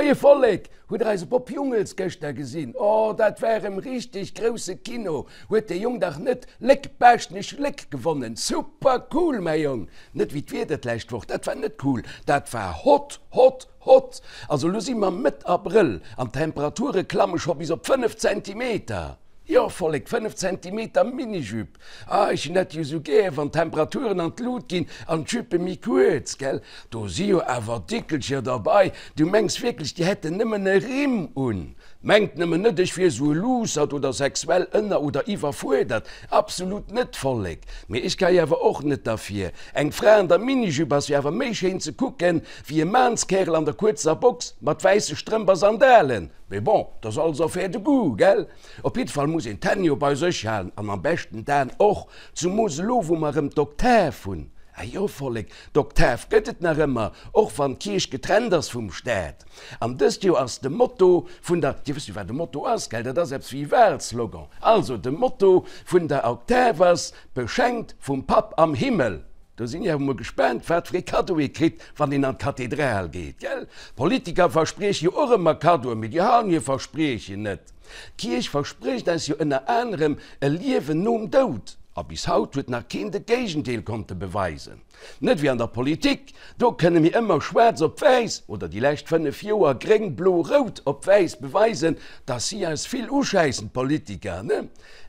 Moie Vollek! Hutt der eise Bob Jungels gëschter gesinn? Oh, dat war erëm richteg grousse Kino! Huet dee Jong dach net Léck Baaschtnech Léck gewonnen? Super cool, mäi Jong! Net wéi d'Wieder d'lescht Woch, dat war net cool, dat war hot, hot, hot! Also lo si mer Mëtt Abrëll an d'Temperature klamme scho bis op 5 Zentimeter! Jo, Vollek, 5 Zentimeter Minijupe! Ah, ech hunn dat jo sou gär, wann d'Temperaturen an d'Lut ginn an d'Juppe méi kuerz, gell? Do si jo awer Dickelcher derbei, du mengs wierklech, déi hätten nëmmen e Rimm un? Mengt nëmmen net, ech wier sou e Luussert oder sexuell ënner oder iwwerfuerdert, absolut net, Vollek! Mee ech ka jo awer och net derfir. Eng Fra an der Minijupe ass jo awer méi schéin ze kucken, wéi e Maanskärel an der kuerzer Box mat wäisse Strëmp a Sandalen. Mee bon, 't ass alles affaire de goût, gell? Op jidde Fall muss een d'Hänn jo bei sech halen an am beschten d'Aen och, zumoos elo wou mer erëm d'Oktav hunn. Ah jo, Vollek, d'Oktav gëtt et nach ëmmer, och wann d'Kierch getrennt ass vum Staat. An dëst Joer ass de Motto vun der, Dir wësst jo wat e Motto ass, gell, dat ass eppes wéi e Wahlslogan. Also, de Motto vun der Oktav ass, Beschenkt vum Papp am Himmel. Do sinn ech awer mol gespaant, wat fir ee Kaddo ee kritt, wann een an d'Kathedral geet, gell? Politiker versprieche jo och ëmmer Kaddoen, mee déi halen hir Verspriechen net. D'Kierch versprécht eis jo ënner anerem e Liewen nom Doud, a bis haut huet nach keen de Géigendeel konnte beweisen. Net wéi an der Politik, do kënne mir ëmmer schwaarz op wäiss, oder déi lescht 5 Joer gréng, blo, rout op wäiss beweisen, dass si eis vill uschäissen, d'Politiker, ne?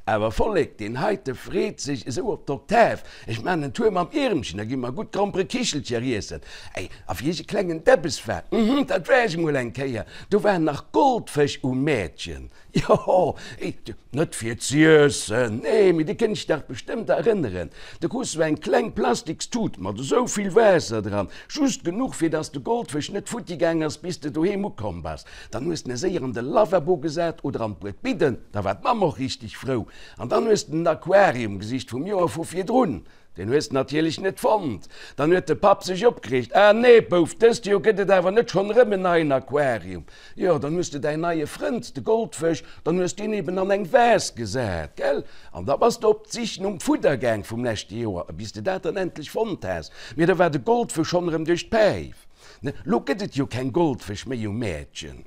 Awer Vollek, deen heite freet sech esou op d'Oktav. Ech maan en Tour mam Iermchen, da gi mer gutt Gromperekichelcher iessen. Ey, a wéi ech e klengen Debbes war, mhm, dat war ech emol eng Kéier, do waren nach Goldfësch um Mäertchen. Jo, ey, net fir z'iessen, nee, mee dir kënnt iech dach bestëmmt erënneren, do krus du eng kleng Plastikstut mat esou vill Waasser dran, just genuch, fir dass de Goldfësch net futti gaang ass, bis de doheem ukomm bass. Dann hues de en séier an de Lavabo gesat oder an d'Buedbidden, da war d'Mamm och richteg frou. An dann hues de den Aquarium gesicht vum Joer vu virdrun, deen hues de natierlech net fonnt. Dann huet de Papp sech opgereegt, Ah nee, Bouf, dëst Joer gëtt et awer net schonn erëm en neien Aquarium. Jo, dann hues de däin neie Frënd, de Goldfësch, dann hues deen eben an eng Vase gesat, gell? An da bass de op d'Sich nom Fudder gaang vum leschte Joer, bis de dat dann endlech fonnt has. Mee da war de Goldfësch schonn erëm duerch d'Päif. Ne, lo gëtt et jo keng Goldfësch méi um Mäertchen.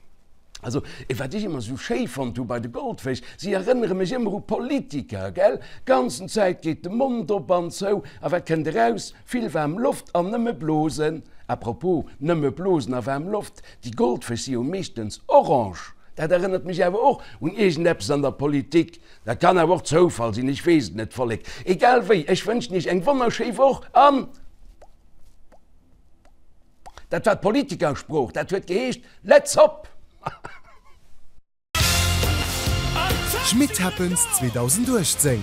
Also, wat ech ëmmer sou schéi fonnt hu bei de Goldfësch, si erënnere mech ëmmer u Politiker, gell? Ganzen Zäit geet de Mond op an zou, a wat kënnt eraus? Vill waarm Loft an nëmme Blosen. À propos, nëmme Blosen a waarm Loft, déi Goldfësch si jo meeschtens orange. Dat erënnert mech awer och un iergendeppes an der Politik. Dat kann awer och Zoufall sinn, ech weess et net, Vollek. Egal wéi, ech wënschen iech eng wonnerschéi Woch an. Dat war d'Politikersprooch, dat huet geheescht, Let's hop! Schmit Happens 2018,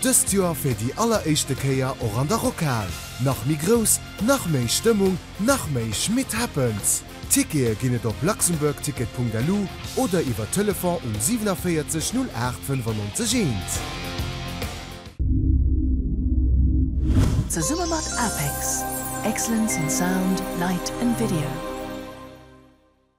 dëst Joer fir déi alleréischte Kéier och an der Rockhal. Nach méi grouss, nach méi Stëmmung, nach méi Schmit Happens! Tickete ginn et op luxembourgticket.lu oder iwwer Telefon um 47 08 95 1. Zesumme mat APEX, Excellence in Sound, Light and Video.